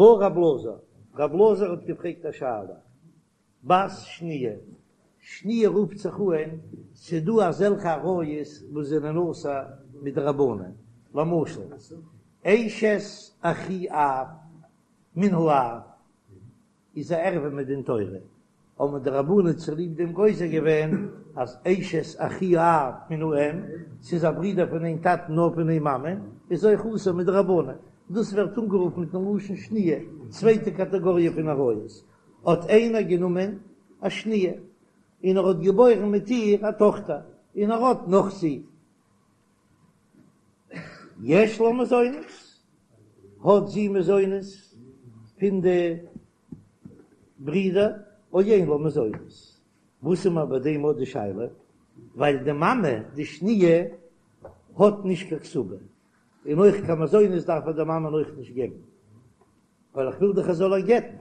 בעי רב אלעזר, רב אלעזר האט געפרעגט א שאלה, בת שניה, שניה רופט זיך אהן, ס'דא אזעלכע עריות וואס זענען אסור מדרבנן, למשל, אשת אחי אב מן האב איז א ערווה מדין תורה, האבן די רבנן צוליב דעם גוזר געווען אז אשת אחי האב מן האם, ס'איז א ברודער פון איין טאטן נאר פון איין מאמע, איז אויך אסור מדרבנן, דאס ווערט אנגערופן מיטן לשון שניה, צווייטע קאטעגאריע פון עריות, האט איינער גענומען א שניה און ער האט געבוירן מיט איר א טאכטער, און ער האט נאך זין. יש לה מזונות, האט זי מזונות פון די ברידער, או אין לה מזונות. וואס איז מיר ביי דעם אט די שאלה? ווייל די מאמע די שניה האט נישט קיין כתובה, און אויך קיין מזונות דארף ער די מאמען אויך נישט געבן, ווייל איך וויל דאך ער זאל איר גט'ן.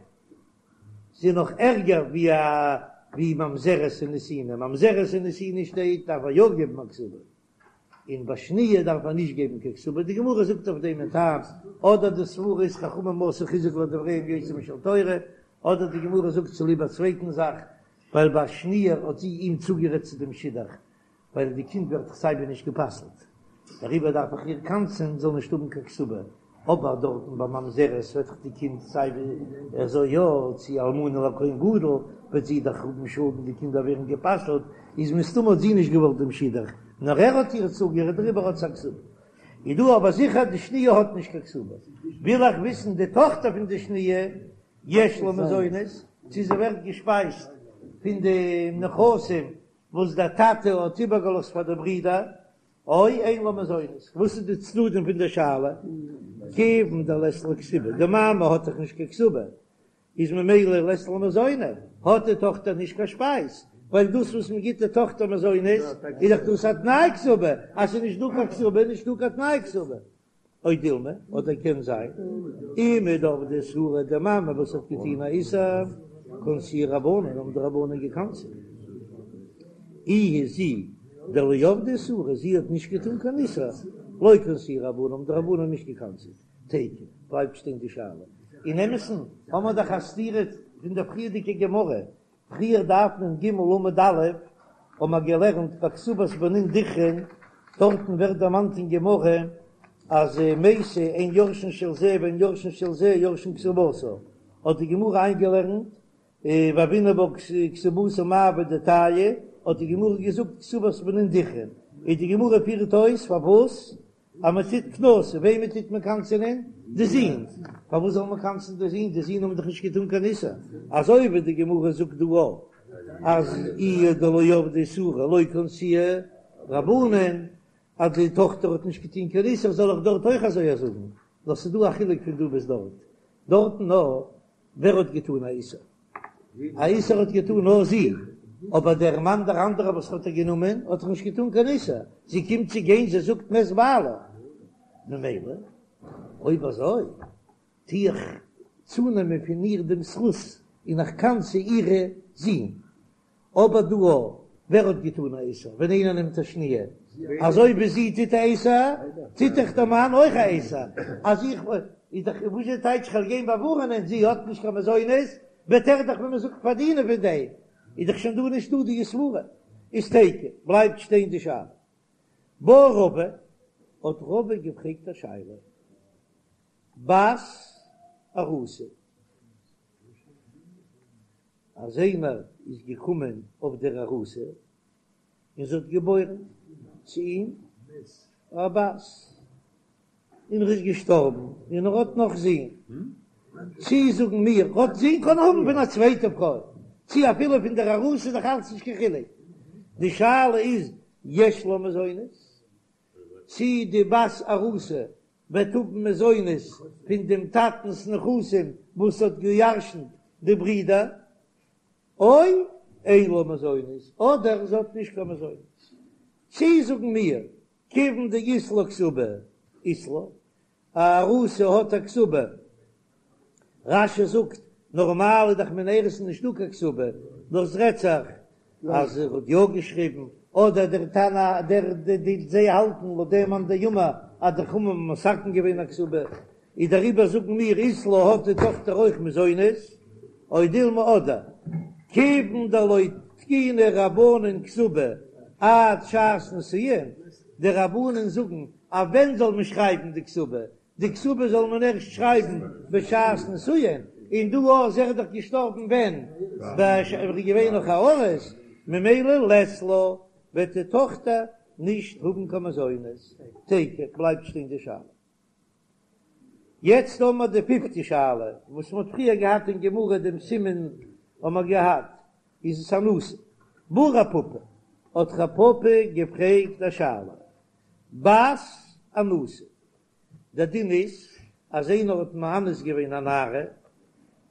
זי איז נאך ערגער ווי א ווי ממזרת און נתינה, ממזרת און נתינה שטייט דארף ער יא געבן א כתובה, און ביי שניה דארף מען נישט געבן קיין כתובה, די גמרא זאגט אויף דעם א טעם, אדער די סברא איז חכמים עשו חיזוק לדבריהם יותר משל תורה, אדער די גמרא זאגט צוליב א צווייטן זאך, ווייל ביי שניה האט זי אים צוגערעדט צו דעם שידוך, ווייל די קינד ווערט דאך סייווי נישט גע'פסל'ט, דעריבער דארף איך איר קנס'ען זאל נישט האבן קיין כתובה, אבער דארטן ביי ממזרת וועט דאך די קינד סייווי אזוי יא, צו אלמנה לכהן גדול וועט זי דאך האבן שאדן די קינדער ווערן גע'פסל'ט, איז מסתמא האט זי נישט געוואלט דעם שידוך, נאר ער האט איר צוגערעדט דעריבער האט זי א כתובה. איז דא אבער זיכער די שניה האט נישט קיין כתובה, וויל איך וויסן די טאכטער פון די שניה יש לה מזונות, צו זי ווערט געשפייזט פון די נכסים וואס דער טאטע האט איבערגעלאזט פאר די ברידער, או אין לה מזונות, וואס איז די צדדים פון די שאלה? כיוון דלית לה כתובה, די מאמע האט דאך נישט קיין כתובה, איז ממילא לית לה מזוני, האט די טאכטער נישט קיין שפייז, ווייל דאס וואס מען גיט די טאכטער מזונות איז דאך דאס א תנאי כתובה, אז ס'איז נישט דא קיין כתובה איז נישט דא קיין תנאי כתובה. או דילמא, אדער קען זיין, אימא דעבדה איסורא, די מאמע וואס האט געטון א איסור, קנסוה רבנן, האבן די רבנן געקנס'עט. איהי זי דלא עבדה איסורא, זי האט נישט געטון קיין איסור, לא קנסוה רבנן, האבן די רבנן נישט געקנס'עט. תיקו, בלייבט שטיין די שאלה. אין אמת'ן האבן מיר דאך א סתירה פון דער פריערדיגע גמרא, פריער דף נ"ג עמוד א' האבן מיר געלערנט ביי כתובת בנין דכרין, דארטן ווערט דערמאנט אין גמרא אז מתה אין יורשין של זה ואין יורשין של זה יורשין כתובתה, האט די גמרא איינגעלערנט והוינן בה כתובתה מאי עבידתייהו, האט די גמרא געזאגט כתובת בנין דכרין, און די גמרא פירט אויס פארוואס אז מען טוט קנסא, וועמען טוט מען קנס'ענען? די זין. פארוואס זאל מען קנס'ן די זין? די זין האבן דאך נישט געטאן קיין איסור. אזוי ווי די גמרא זאגט דא אויך אז איהי דלא עבדה איסורא לא קנסוה רבנן, אז די טאכטער האט נישט געטון קיין איסור, זאל איך דארט אויך אזוי זאגן? נאר ס'איז דא א חילוק פון דא ביז דארט. דארטן נאר ווער האט געטאן א איסור? א איסור האט געטאן נאר זי, אבער דער מאן דער אנדערער וואס האט איר גענומען האט דאך נישט געטאן קיין איסור, זי קומט צו גיין זי זאגט מת בעלה, ממילא אויב אזוי טו איך צונעמען פון איר דעם זכות און איך קנס'ע אירע זין, אבער דא ווער האט געטאן א איסור ווען איינער נעמט א שניה? אזוי ווי זי טוט א איסור, טוט דאך דער מאן אויך א איסור, אז איך איז דאך וואס איז טייטש כ'וועל גיין באווארענען זי האט נישט קיין מזונות, וועט ער דאך ווי מען זאגט פארדינען פון דעם, איז דאך שוין דא נישטא די סברה, איז תיקו, בלייבט שטיין די שאלה. בעי רבא, האט רבא געפרעגט א שאלה, בת ארוסה. אז איינער איז געקומען אויף דער ארוסה און זי האט געבוירן צו אים א בת, און ער איז געשטארבן און ער האט נאך זין, צי זאגן מיר ער האט זין קען האבן פון א צווייטע פרוי, צי אפילו פון דער ארוסה איז דאך אלץ נישט קיין חילוק, די שאלה איז יש לה מזונות, צי די בת ארוסה וועט האבן מזונות פון דעם טאטנ'ס נכסים וואס האט געירשנט די ברידער, או אין לה מזונות, אדער זי האט נישט קיין מזונות. צי זאגן מיר, כיוון דאית לה כתובה, אית לה, א ארוסה האט א כתובה, רש"י זאגט, נארמאל איז דאך מן האירוסין נישטא קיין כתובה, נאר ס'רעדט זיך אז ער האט יא געשריבן, אדער דער תנא דער די זיי האלטן לויט דעם מאן דאמר אז די חכמים האבן מתקן געווען א כתובה. איז דעריבער זאגן מיר אית לה האט די טאכטער אויך מזונות, או דילמא אדער כיוון דלא תקינו רבנן כתובה עד שעת נישואין, די רבנן זאגן אז ווען זאל מען שרייבן די כתובה, די כתובה זאל מען ערשט שרייבן בשעת נישואין, און דא איז ער דאך געשטארבן ווען ער איז געווען נאך א ארוס, ממילא לית לה וועט די טאכטער נישט האבן קיין מזונות, תיקו בלייבט שטיין די שאלה. יעצט האבן מיר די פיפטע שאלה וואס מ'האט פריער געהאט אין גמרא דעם סימן האבן מיר געהאט, איז עס אנוסה? בעי רב פפא, האט רב פפא געפרעגט א שאלה, בת אנוסה, דער דין איז אז איינער האט מאנס געווען א נערה,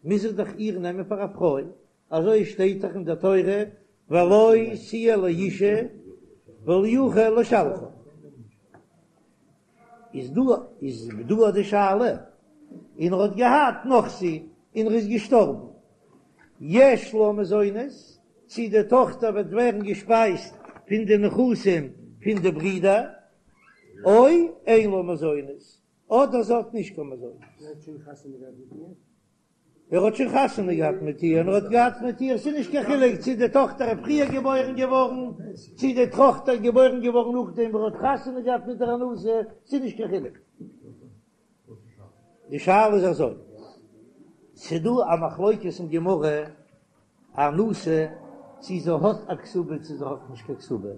מוז ער דאך איר נעמען פאר א פרוי, אזוי שטייט דאך אין דער תורה ולו תהיה לאשה ולא יוכל לשלחה. איז דא איז דא די שאלה, און ער האט געהאט נאך זי און ער איז געשטארבן, יש לה מזונות, צי די טאכטער וועט ווערן געשפייזט פון די נכסים פון די ברידער, או אין לה מזונות, אדער זי האט נישט קיין מזונות. ער האט שוין חתונה געהאט מיט איר און ער האט געהאט מיט איר, ס'איז נישט קיין חילוק צי די טאכטער איז פריער געבוירן געווארן, צי די טאכטער איז געבוירן געווארן נאכדעם וואס ער האט חתונה געהאט מיט דער אנוסה, ס'איז נישט קיין חילוק. די שאלה איז אזוי, ס'איז דא א מחלוקת אין גמרא, אנוסה צי זי האט א כתובה צי זי האט נישט קיין כתובה,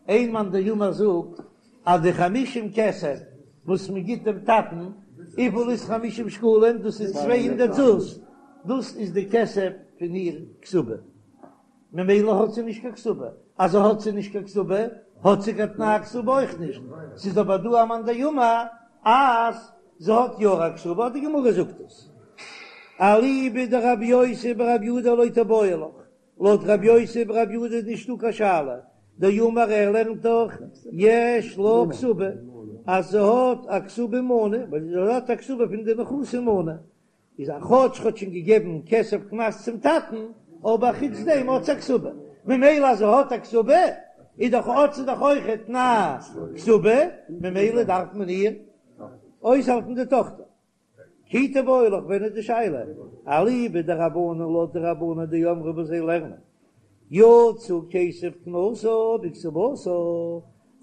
איין מאן דאמר זאגט אז די חמישים כסף וואס מען גיט דעם טאטן, וויפיל איז חמישים שקלים? דאס איז 200 זוז, דאס איז די כסף פון איר כתובה, ממילא האט זי נישט קיין כתובה, אז האט זי נישט קיין כתובה האט זי קיין תנאי כתובה אויך נישט, ס'איז אבער דא א מאן דאמר אז זי האט יא א כתובה, די גמרא זאגט עס. אליבא דרבי יוסי ברבי יהודה לא תיבעי לך, לויט רבי יוסי ברבי יהודה איז נישטא קיין שאלה, דאמר ער לערנט דאך יש לה כתובה אז זי האט א כתובה מנה, ווייל זי האט א כתובה פון די נכסים מנה, איז א כאטש האט שוין געגעבן כסף קנס צום טאטן, אבער חוץ דעם האט זי א כתובה, ממילא אז זי האט א כתובה איז דאך האט זי דאך אויך תנאי כתובה, ממילא דארף מען איר אויסהאלטן די טאכטער. כי תיבעי לך ווען איז די שאלה? אליבא דרבנן לויט די רבנן דאמרי וואס זיי לערנען יצא כסף קנסה בכתובתה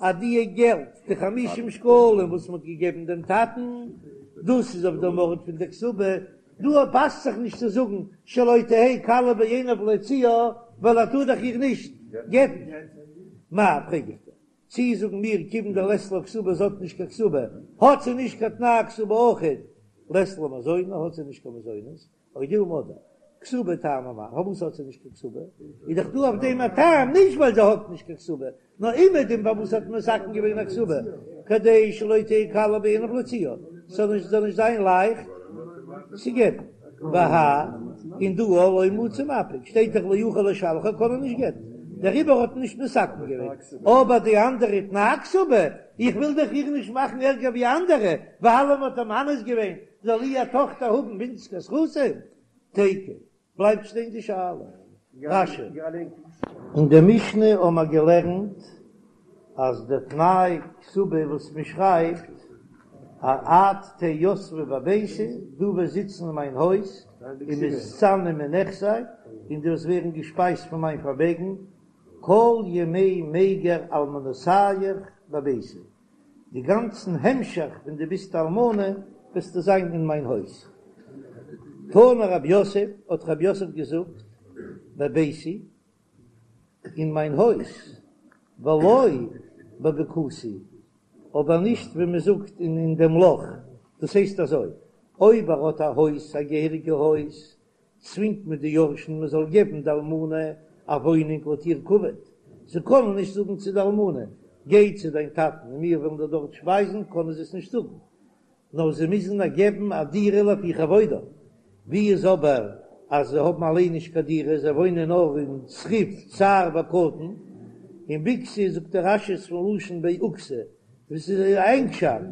אז די געלט די חמישים שקלים וואס מען האט געגעבן דעם טאטן דאס איז אויף דעם ארט פון די כתובה, דא פאסט זיך נישט צו זאגן שלא תהא קלה בעיניו להוציאה ווייל ער טאר דאך איר נישט גט'ן. מאי פרעג איך דיר, צי זאגן מיר כיוון דלית לה כתובה זי האט נישט קיין כתובה האט זי נישט קיין תנאי כתובה אויכעט לית לה מזוני האט זי נישט קיין מזונות או דילמא אדער כתובה טעמא מאי פארוואס האט זי נישט קיין כתובה איז דאך דא אויף דעם א טעם נישט ווייל זי האט נישט קיין כתובה נאר אומעדום פארוואס האט מען מתקן געווען א כתובה כדי שלא תהא קלה בעיניו להוציאה ס'זאל נישט זאל נישט זיין לייכט צו גט'ן והא און דא לא מצי מפיק שטייט דאך לא יוכל לשלחה קען ער נישט גט'ן דעריבער האט מען נישט מתקן געווען אבער די אנדערע תנאי כתובה איך וויל דאך איר נישט מאכן ערגער ווי אנדערע ווייל מ'האט איר מאנס געווען זאל איר טאכטער האבן ווינציגער זכותים תיקו בלייבט שטיין די שאלה. רש"י. אין די משנה האבן מיר געלערנט אז די תנאי כתובה וואס מען שרייבט א את תהא יתבא בביתי, דו וועסט זיצן אין מיין הויז, ומתזני מנכסי, און דו וועסט ווערן געשפייזט פון מיין פארמעגן, כל ימי מיגר אלמנותיך בביתי, די גאנצן המשך ווען דו ביסט אלמנה וועסטו זיין אין מיין הויז. תנא רב יוסף, האט רב יוסף געזאגט, בביתי, אין מיין הויז, ולא בבקתי, אבער נישט ווי מען זאגט אין דעם לאך, דאס הייסט אזוי, אויב ער האט א הויז, א געהעריגע הויז, צווינגט מען די יורשים מען זאל געבן די אלמנה א וואוינונג לויט איר כבוד, זיי קענען נישט זאגן צו די אלמנה, גיי צו דיין טאטן און מיר וועלן דיר דארט שפייזן, קענען זיי עס נישט זאגן, נאר זיי מוזן איר געבן א דירה לפי כבודה, ווי איז אבער אז זיי האבן אליין נישט קיין דירה, זיי וואוינען נאר אין צריף צר וקטן, און בקתי זאגט דער רש"י איז פון לשון בעוקתא, וואס איז א ענגשאפט,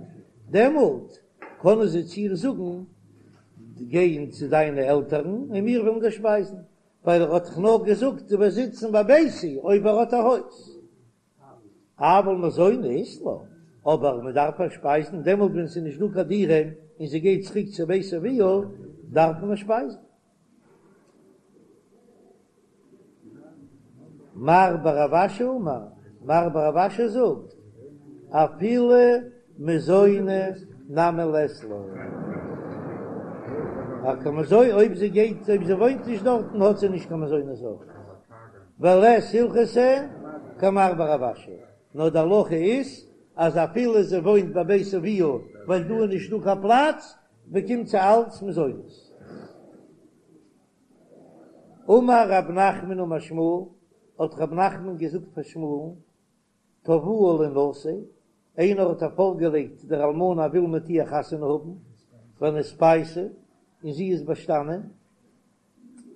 דעמאלט קענען זיי צו איר זאגן, גיי צו דיינע עלטערן און מיר וועלן דיר שפייזן, ווייל ער האט דאך נאר געזאגט דו וועסט זיצן בביתי אויב ער האט א הויז. אבל מזוני אית לה, אבער מען דארף איר שפייזן דעמאלט ווען ס'איז נישט דא קיין דירה. און זי גייט צוריק צו בית אביה, דארף מען איר שפייזן. מר בר רב אשי אמר, מר בר רב אשי זאגט, אפילו מזוני נמי לית לה. א קיין מזוני, אויב זי גייט, אויב זי וואוינט נישט דארטן האט זי נישט קיין מזונות אויך. ולית הלכתא כמר בר רב אשי, נאר די הלכה איז אז אפילו זי וואוינט ביי בית אביה ווייל דא איז נישטא קיין פלאץ, באקומט זי אלץ מזונות. אמר רב נחמן אמר שמואל, האט רב נחמן געזאגט פאר שמואל'ן, תבעוה לינשא, איינער האט איר פארגעלייגט דער אלמנה וויל מיט איר חתונה האבן, ונתפייסה, און זי איז באשטאנען,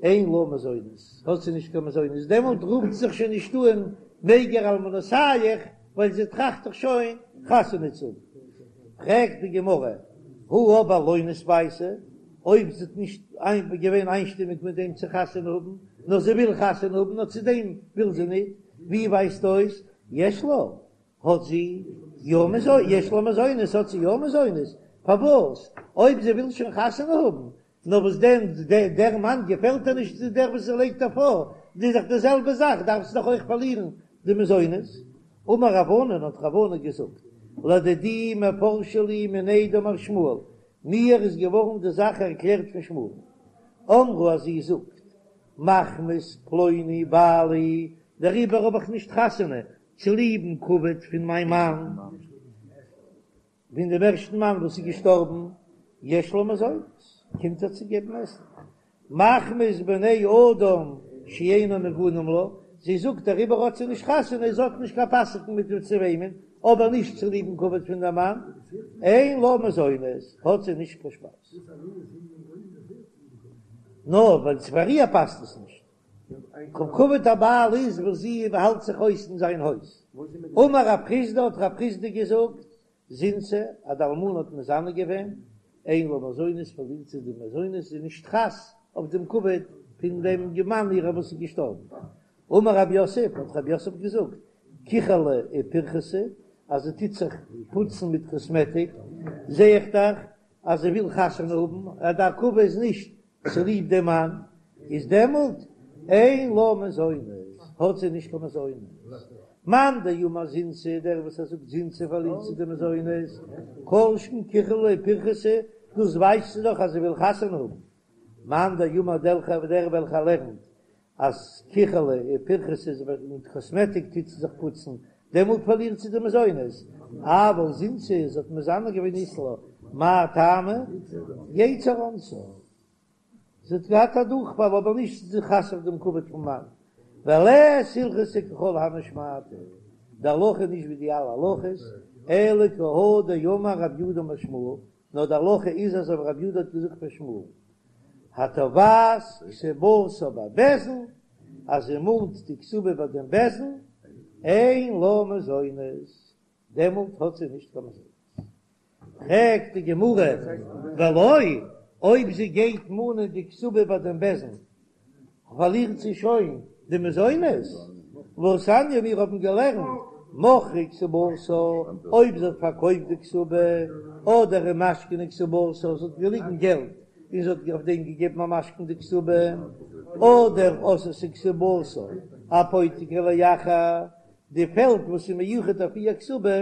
אין לה מזונות, האט זי נישט קיין מזונות, דעמאלט רופט זיך שוין נישט אן מיגר אלמנותיך, ווייל זי טראכט דאך שוין חתונה צו האבן. פרעגט די גמרא, הא אבער לא נתפייסה, אויב זי האט נישט געווען איינשטימיג מיט דעם צו חתונה האבן, נאר זי וויל חתונה האבן, נאר צו דעם וויל זי ניט, ווי ווייזט אויס יש לה, האט זי יא מזונות, יש לה מזונות, האט זי יא מזונות, פארוואס אויב זי וויל שוין חתונה האבן, נאר וואס דען, דער מאן געפעלט איר נישט צו דער וואס זי לייגט איר פאר, איז דאך די זעלבע זאך, דארף זי דאך אויך פארלירן די מזונות. אמר רב ענן, האט רב ענן געזאגט, לדידי מפרשא לי מיניה דמר שמואל, מיר איז געווארן די זאך ערקלערט פון שמואל. אמרה אז זי זאגט, מחמת פלוני בעלי, דעריבער האב איך נישט חתונה, צוליבן כבוד פון מיין מאן. פון דעם ערשטן מאן וואס איז געשטארבן, יש לה מזונות, קומט איר צו געבן עסן, מחמת בני אדם שאינם הגונים לה, זי זאגט דעריבער האט זי נישט חתונה, זי האט נישט קיין פאסיגן מיט וועם צו וואוינען, אבער נישט צוליבן כבוד פון דעם מאן, אין לה מזונות, האט זי נישט קיין שפייז. נאר ווייל פאר איר פאסט עס נישט. כבוד הבעל איז וואס זי האלט זיך אויס אין זיין הויז. אמר רב חסדא האט רב חסדא געזאגט, זינתה, אז די אלמנה האט מזנה געווען, אין לה מזונות פארלירט זי די מזונות, זי איז נישט חס אויף דעם כבוד פון דעם מאן אירע וואס איז געשטארבן. אמר רב יוסף, האט רב יוסף געזאגט, כחלה ופרכסה, אז זי טוט זיך פוצן מיט קאסמעטיק, זע איך דאך אז זי וויל חתונה האבן, אז די עכבה איז נישט צוליב דעם מאן, איז דעמאלט אין לה מזונות, האט זי נישט קיין מזונות. מאן דאמר זינתה, דער וואס ער זאגט זינתה פארלירט זי די מזונות, כל שכן כחלה ופרכסה, דאס ווייזט זי דאך אז זי וויל חתונה האבן. מאן דאמר דער וועלכער לערנט אז כחלה ופרכסה איז מיט קאסמעטיק טוט זי זיך פוצן, דעמאלט פארלירט זי די מזונות, אבל זינתה זי האט מזנה געווען אית לה, מאי טעמא? יצר אנסה, זי האט געהאט א דורכפאל אבער נישט זי איז חס אויף דעם כבוד פון מאן, ולית הלכתא ככל הני שמעתתא, די הלכה איז נישט ווי די אלע הלכות, אלא כי הא דאמר רב יהודה אמר שמואל, נאר די הלכה איז אזוי ווי רב יהודה האט געזאגט פאר שמואל, התובעת כתובתה בבית דין, אז זי מאנט די כתובה ביי דעם בית דין, אין לה מזונות, דעמאלט האט זי נישט קיין מזונות. פרעגט די גמרא, ולא, אויב זי גייט מאנען די כתובה ביי דעם בית דין, פארלירט זי שוין די מזונות, והתניא מיר האבן געלערנט מכרה כתובתה, אויב זי האט פארקויפט די כתובה, אדער ומשכנה כתובתה, זי האט געליגן געלט און זי האט אויף דעם געגעבן א משכון די כתובה, אדער עשתה כתובתה אפותיקי לאחר, די פעלד וואס איז מיוחד אויף איר כתובה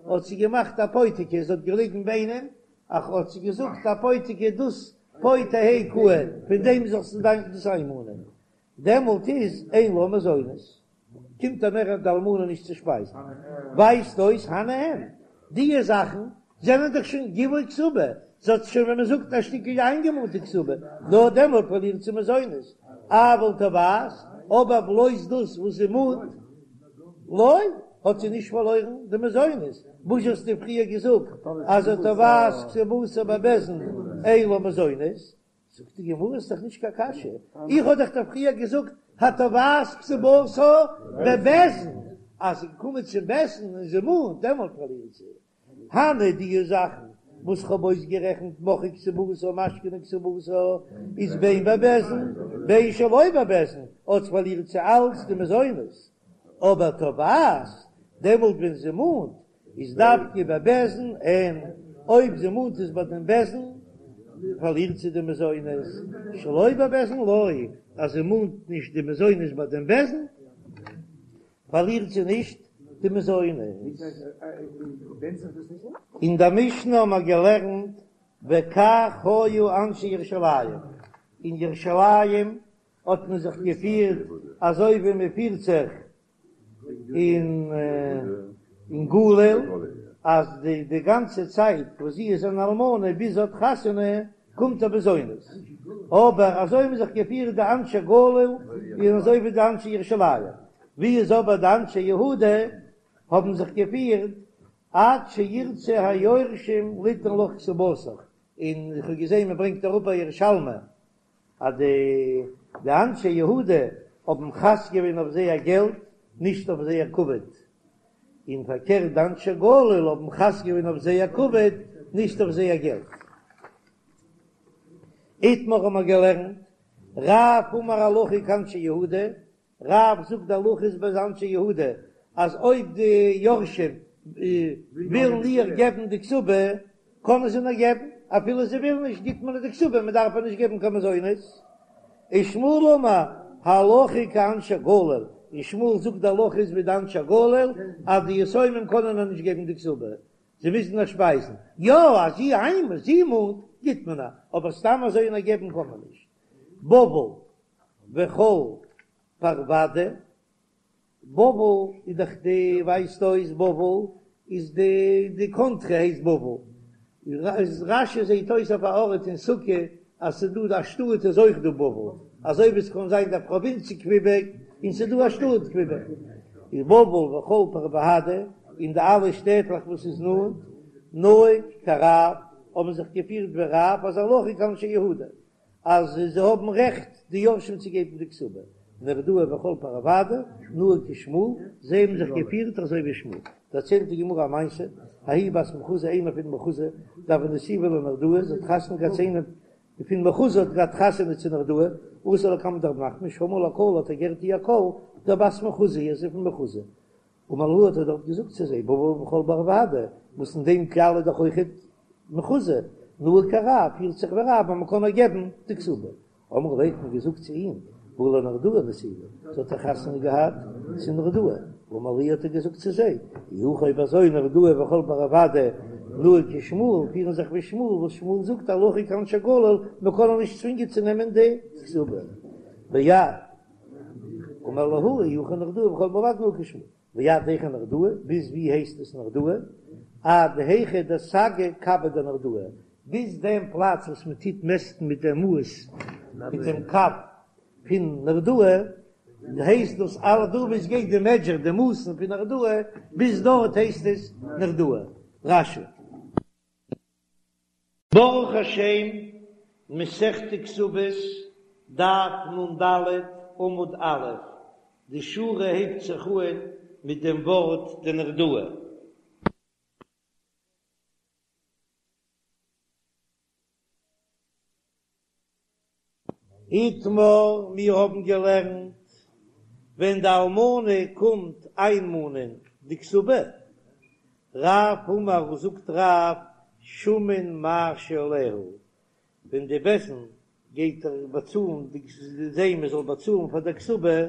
האט זי געמאכט אפותיקי, זי האט געליגן ביי איינעם, אך האט זי געזאגט אפותיקי דאס פה תהא קאי, פון דעם זאלסטו דיין דאס איינמאנען, דעמאלט איז אין לה מזונות, קומט איר מער די אלמנה נישט צו שפייזן, ווייזט אויס הני אין, דיע זאכן זענען דאך שוין גיבוי כתובה, זי האט שוין ווי מען זאגט א שטיקל איינגעמאנט די כתובה, נאר דעמאלט פארלירט זי מזונות, אבל תובעת, אבער בלויז דאס וואס זי מאנט, לא, האט זי נישט פארלוירן די מזונות, וואס האסטו פריער געזאגט אז התובעת כתובתה בבית דין אין לה מזונות? זאגט די גמרא איז דאך נישט קיין קשיא, איך האב דאך דיר פריער געזאגט התובעת כתובתה בבית דין, אז זי קומט צום בית דין און זי מאנט דעמאלט פארלירט זי. הני די זאכן וואס כ'האב אויסגערעכנט מכרה כתובתה ומשכנה כתובתה איז בין בבית דין בין שלא בבית דין אלץ פארלירט זי אלץ די מזונות, אבער תובעת דעמאלט ווען זי מאנט איז דווקא בבית דין אין. אויב זי מאנט עס ביי דעם בית דין פארלירט זי די מזונות, שלא בבית דין לא, אז זי מאנט נישט די מזונות ביי דעם בית דין פארלירט זי נישט די מזונות. אין דער משנה האבן מיר געלערנט וכך היו אנשי ירושלים, אין ירושלים האט מען זיך געפירט אזוי ווי מען פירט זיך אין גליל, אז די די גאנצע צייט וואס זי איז אן אלמנה ביז זי האט חתונה קומט איר מזונות, אבער אזוי האבן זיך געפירט די אנשי גליל און אזוי ווי די אנשי ירושלים, ווי איז אבער די אנשי יהודה האבן זיך געפירט עד שירצו היורשים ליתן לך כתובתיך, און איך האב געזען מען ברענגט אראפ א ירושלמי אז די די אנשי יהודה האבן חס געווען אויף זייער געלט נישט אויף זייער כבוד, און פארקערט די אנשי גליל האבן חס געווען אויף זייער כבוד נישט אויף זייער געלט. איתמר האבן מיר געלערנט, רב אמר הלכה כאנשי יהודה, רב זאגט די הלכה איז ווי אנשי יהודה אז אויב די יורשים ווילן איר געבן די כתובה קענען זיי איר געבן, אפילו זיי ווילן נישט גיט מען איר די כתובה מען דארף איר נישט געבן קיין מזונות. ושמואל אמר הלכה כאנשי גליל, און שמואל זאגט די הלכה איז ווי די אנשי גליל אז די יתומים קענען איר נישט געבן די כתובה, זיי מוזן איר שפייזן, יא אז זי איינמאל זי מאנט גיט מען איר, אבער סתם אזוי איר געבן קען מען נישט. בבל וכל פרוודהא, בבל איז דאך די ווייזט אויס בבל איז די די קאנטרי הייסט בבל, איז רש"י זעהט אויס אויף א ארט אין סוכה אז ס'איז דא א שטאט איז אויך דא בבל, אזוי ווי ס'קען זיין די פראווינץ קוויבעק און ס'איז דא א שטאט קוויבעק, איז בבל וכל פרוודהא און די אלע שטעטלעך וואס איז נאנט נהוג כרב האבן זיך געפירט ווי רב אז הלכה כאנשי יהודה. אז זיי האבן רעכט די יורשים צו געבן די כתובה, נהרדעא וכל פרוודהא, נהוג כשמואל, זיי האבן זיך געפירט אזוי ווי שמואל. דערציילט די גמרא א מעשה, ההיא בת מחוזא איינער פון מחוזא, דהוה נסיבה לנהרדעא, זי האט חתונה געהאט צו איינעם פון מחוזא האט געהאט חתונה צו נהרדעא, אתא לקמיה דרב נחמן, שמעה לקלה האט ער געהערט איר קול, דבת מחוזא היא, זי איז פון מחוזא. אמר להו האט ער דארט געזאגט צו זיי, בבל וכל פרוודהא, וואס אין דעם כלל איז דאך אויכעט מחוזא, נהוג כרב, פירט זיך ווי רב אז מען קען איר געבן די כתובה. אמרו ליה האט מען געזאגט צו אים, הא לנהרדעא נסיבה, זי האט דאך חתונה געהאט צו נהרדעא. אמר להו האט ער געזאגט צו זיי, אי הכי אויב אזוי נהרדעא וכל פרוודהא נהוג כשמואל, פירן זיך ווי שמואל, וואס שמואל זאגט הלכה כאנשי גליל, מען קען איר נישט צווינגען צו נעמען די כתובה. ועד אמר להו אי הכי נהרדעא וכל פרוודהא נהוג כשמואל, ועד היכא נהרדעא, ביז ווי הייסט עס נהרדעא? עד היכא דסגי קבא דנהרדעא, ביז דעם פלאץ וואס מען טוט מעסטן מיט דעם מאס מיט דעם קב פון נהרדעא, הייסט דאס אלע דא ווי עס גייט די מעדזשער די מאסן פון נהרדעא, ביז דארט הייסט עס נהרדעא. רש"י. ברוך השם, מסכת כתובות, דף נ"ד, עמוד א', די שורה הייבט זיך אהן מיט דעם ווארט דנהרדעא. איתמר, מיר האבן געלערנט, ווען די אלמנה קומט איינמאנען די כתובה, רב אמר זאגט רב שמין מה שעליה, ווען די בית דין גייט באצאלן די זיי מען זאל באצאלן פאר די כתובה,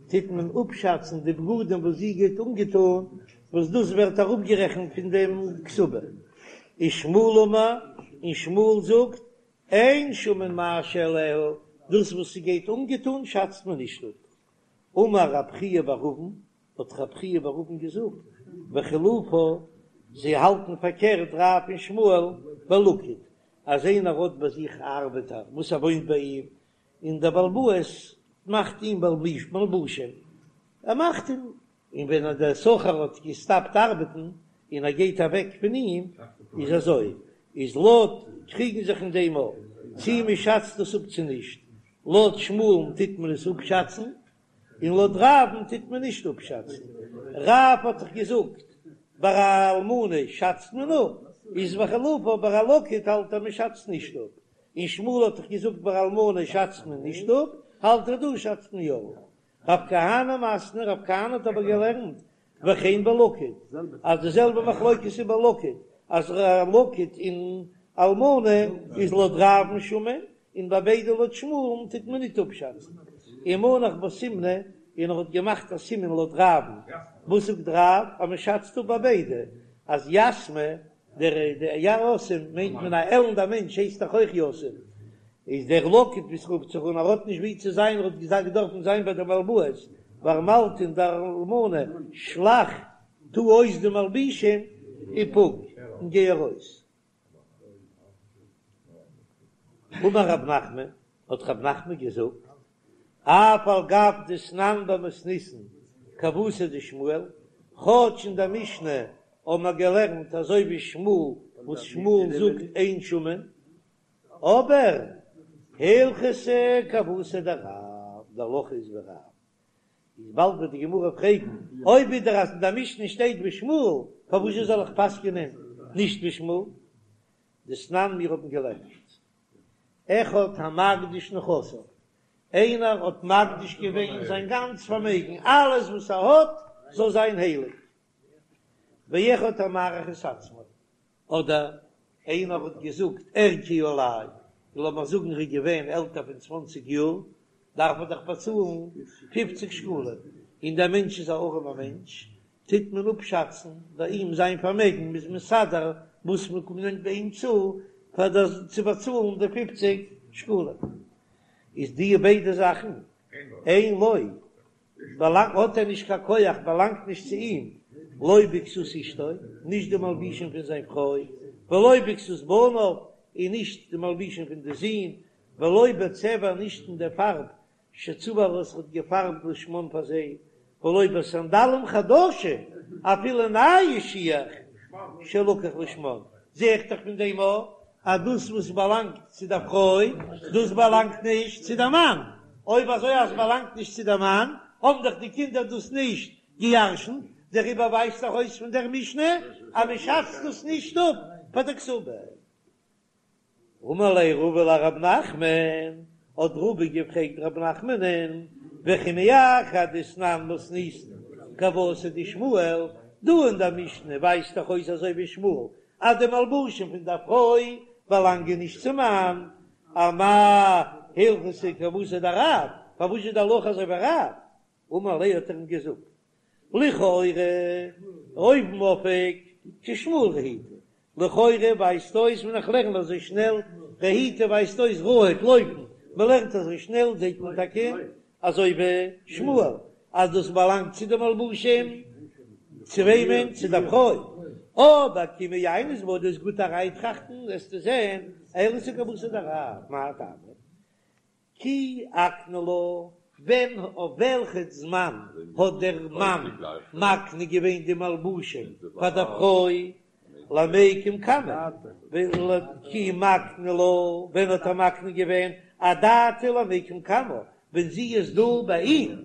טוט מען אפשאצן די בגדים וואס זי גייט אנגעטון, וואס דאס ווערט אראפגערעכנט פון דעם כתובה. ושמואל אמר, און שמואל זאגט, אין שמין מה שעליה, דאס וואס זי גייט אנגעטון שאצט מען נישט אפ. אמר רב חייא בר אבין, האט רב חייא בר אבין געזאגט, וחילופה, זיי האלטן פארקערט רב און שמואל בלקיט, אז איינער האט ביי זיך א ארבעטער וואס ער וואוינט ביי אים, און דער בעל הבית מאכט אים מלבושים, ער מאכט אים, און ווען דער שכיר האט געסטאפט ארבעטן און ער גייט אוועק פון אים, איז אזוי, איז לויט קריגן זיך אין דעם אויף צי מען שאצט דאס אפ צו נישט, לויט שמואל'ן טוט מען עס אפשאצן, און לויט רב'ן טוט מען נישט אפשאצן. רב האט דאך געזאגט ביי א אלמנה שאצט מען אפ, איז וחילופה ביי א לקיט האלט ער מען שאצט נישט אפ, און שמואל האט דאך געזאגט ביי אלמנה שאצט מען נישט אפ, האלט ער דא שאצט מען יא אפ. רב כהנא מתני, רב כהנא האט אבער געלערנט וכן בלקיט, אז די זעלבע מחלוקת איז ביי לקיט, אז א לקיט און אלמנה איז לויט רב'ן שמין, און ביי ביידע לויט שמואל'ן טוט מען ניט אפשאצן. ומנח בה סימנא, און ער האט געמאכט א סימן לויט רב'ן. וואס זאגט רב? אז מען שאצט אפ ביי ביידע אז יתמא, דער יתום מיינט מען א עלנדע מענטש הייסט דאך אויך יתום, איז דער לקיט ווי ס'רופט זיך אן ער האט נישט ווי צו זיין ער האט געזאגט געדארפן זיין ביי די בעל הבית וארמלתא און די אלמנה שלח טו אויס די מלבישים ופוק און גיי ארויס. אמר רב נחמן, האט רב נחמן געזאגט, אף על גב דתנן במתניתין כוותיה דשמואל, כאטש אין דער משנה האבן מיר געלערנט אזוי ווי שמואל וואס שמואל זאגט אין שמין, אבער הלכתא כוותיה דרב, די הלכה איז ווי רב, איז באלד וועט די גמרא פרעגן, אויב ווידער אז אין דער משנה שטייט ווי שמואל, פארוואס זאל איך פסק'נען נישט ווי שמואל? דתנן מיר האבן געלערנט, אחד המקדיש נכסיו, איינער האט מקדיש געווען זיין גאנץ פארמעגן, אלעס וואס ער האט זאל זיין הייליג, ואחד המעריך את עצמו, אדער איינער האט געזאגט ערכי עלי, לאמיר זאגן ער איז געווען עלטער פון צוואנציג יאר, דארף ער דאך באצאלן פופציג שקלים, און דער מענטש איז א ארעמער מענטש, טוט מען אפשאצן ביי אים זיין פארמעגן, מ'איז מסדר וואס מ'קומט ביי אים צו פאר דאס צו באצאלן די פופציג שקלים, איז די ביידע זאכן אין לו. באלאנגט האט ער נישט קיין כח, באלאנגט נישט צו אים, לא בכסות אשתו, נישט די מלבישים פון זיין פרוי, ולא בכסות בניו, און נישט די מלבישים פון די זין, ולא בצבע, נישט אין די פארב שצבע וואס ער האט געפארבט לשמן פאר זיי, ולא בסנדלים חדשים, אפילו נייע שיך שלקח לשמן, זע איך דאך פון דעם אויך אז דאס וואס באלאנגט צו דער פרוי, דאס באלאנגט נישט צו דער מאן, אויב אזוי אז באלאנגט נישט צו דער מאן, האבן דאך די קינדער דאס נישט געירשנט, דעריבער ווייזט דאך אויס פון דער משנה אז מען שאצט דאס נישט אפ פאר דער כתובה. אמר ליה רבא לרב נחמן, האט רבא געפרעגט רב נחמנ'ן, וכי מאחר דתנן מתניתין כוותיה דשמואל, דא אין דער משנה ווייזט דאך אויס אזוי ווי שמואל אז די מלבושים פון דער פרוי באלאנגען נישט צום מאן, אמאי הלכתא כוותיה דרב, פארוואס איז די הלכה אזוי ווי רב? אמר ליה האט ער אים געזאגט, לכאורה אויבן אויף כשמואל רהיטא, לכאורה ווייזט אויס ווען איך לערן אזוי שנעל, רהיטא ווייזט אויס רהוט לויפן, מען לערנט אזוי שנעל זעט מען טאקע אזוי ווי שמואל אז דאס באלאנגט צו די מלבושים, צו וועמען? צו די פרוי, אבער כי מעיינת בה דו'סט גוט אריינטראכטן וועסטו זען הלכתא כוותיה דרב, מאי טעמא? כי אקני לה, ווען אויף וועלכע זמן האט דער מאן מקנה געווען די מלבושים פאר דער פרוי למיקם קמה, כי מקני לה, ווען האט ער מקנה געווען אדעתא למיקם קמה, ווען זי איז דא ביי אים,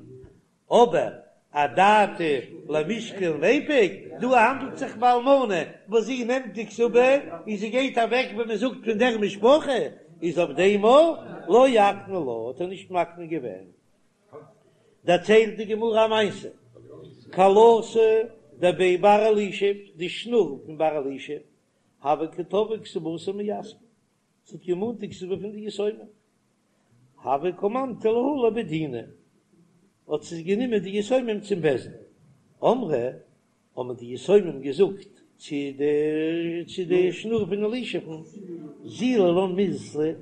אבער אדעתא למישקל וליפוק, דא האנדלט זיך ביי אלמנה וואס זי נעמט די כתובה און זי גייט אוועק ווען מען זאגט פון דער משפחה, איז אויף דעם לא אקני לה האט ער נישט מקנה געווען. דערציילט די גמרא א מעשה, כלתא דבי בר אלישיב, די שנור פון בר אלישיב, הוה קא תבעה כתובתה מיתמי, זי האט געמאנט די כתובה פון די יתומים, הוו קא מנטי להו לבי דינא, האט זי גענומען די יתומים צום בית דין, אמרי, האבן די יתומים געזאגט צו די צו די שנור פון אלישיב'ן, זילא לן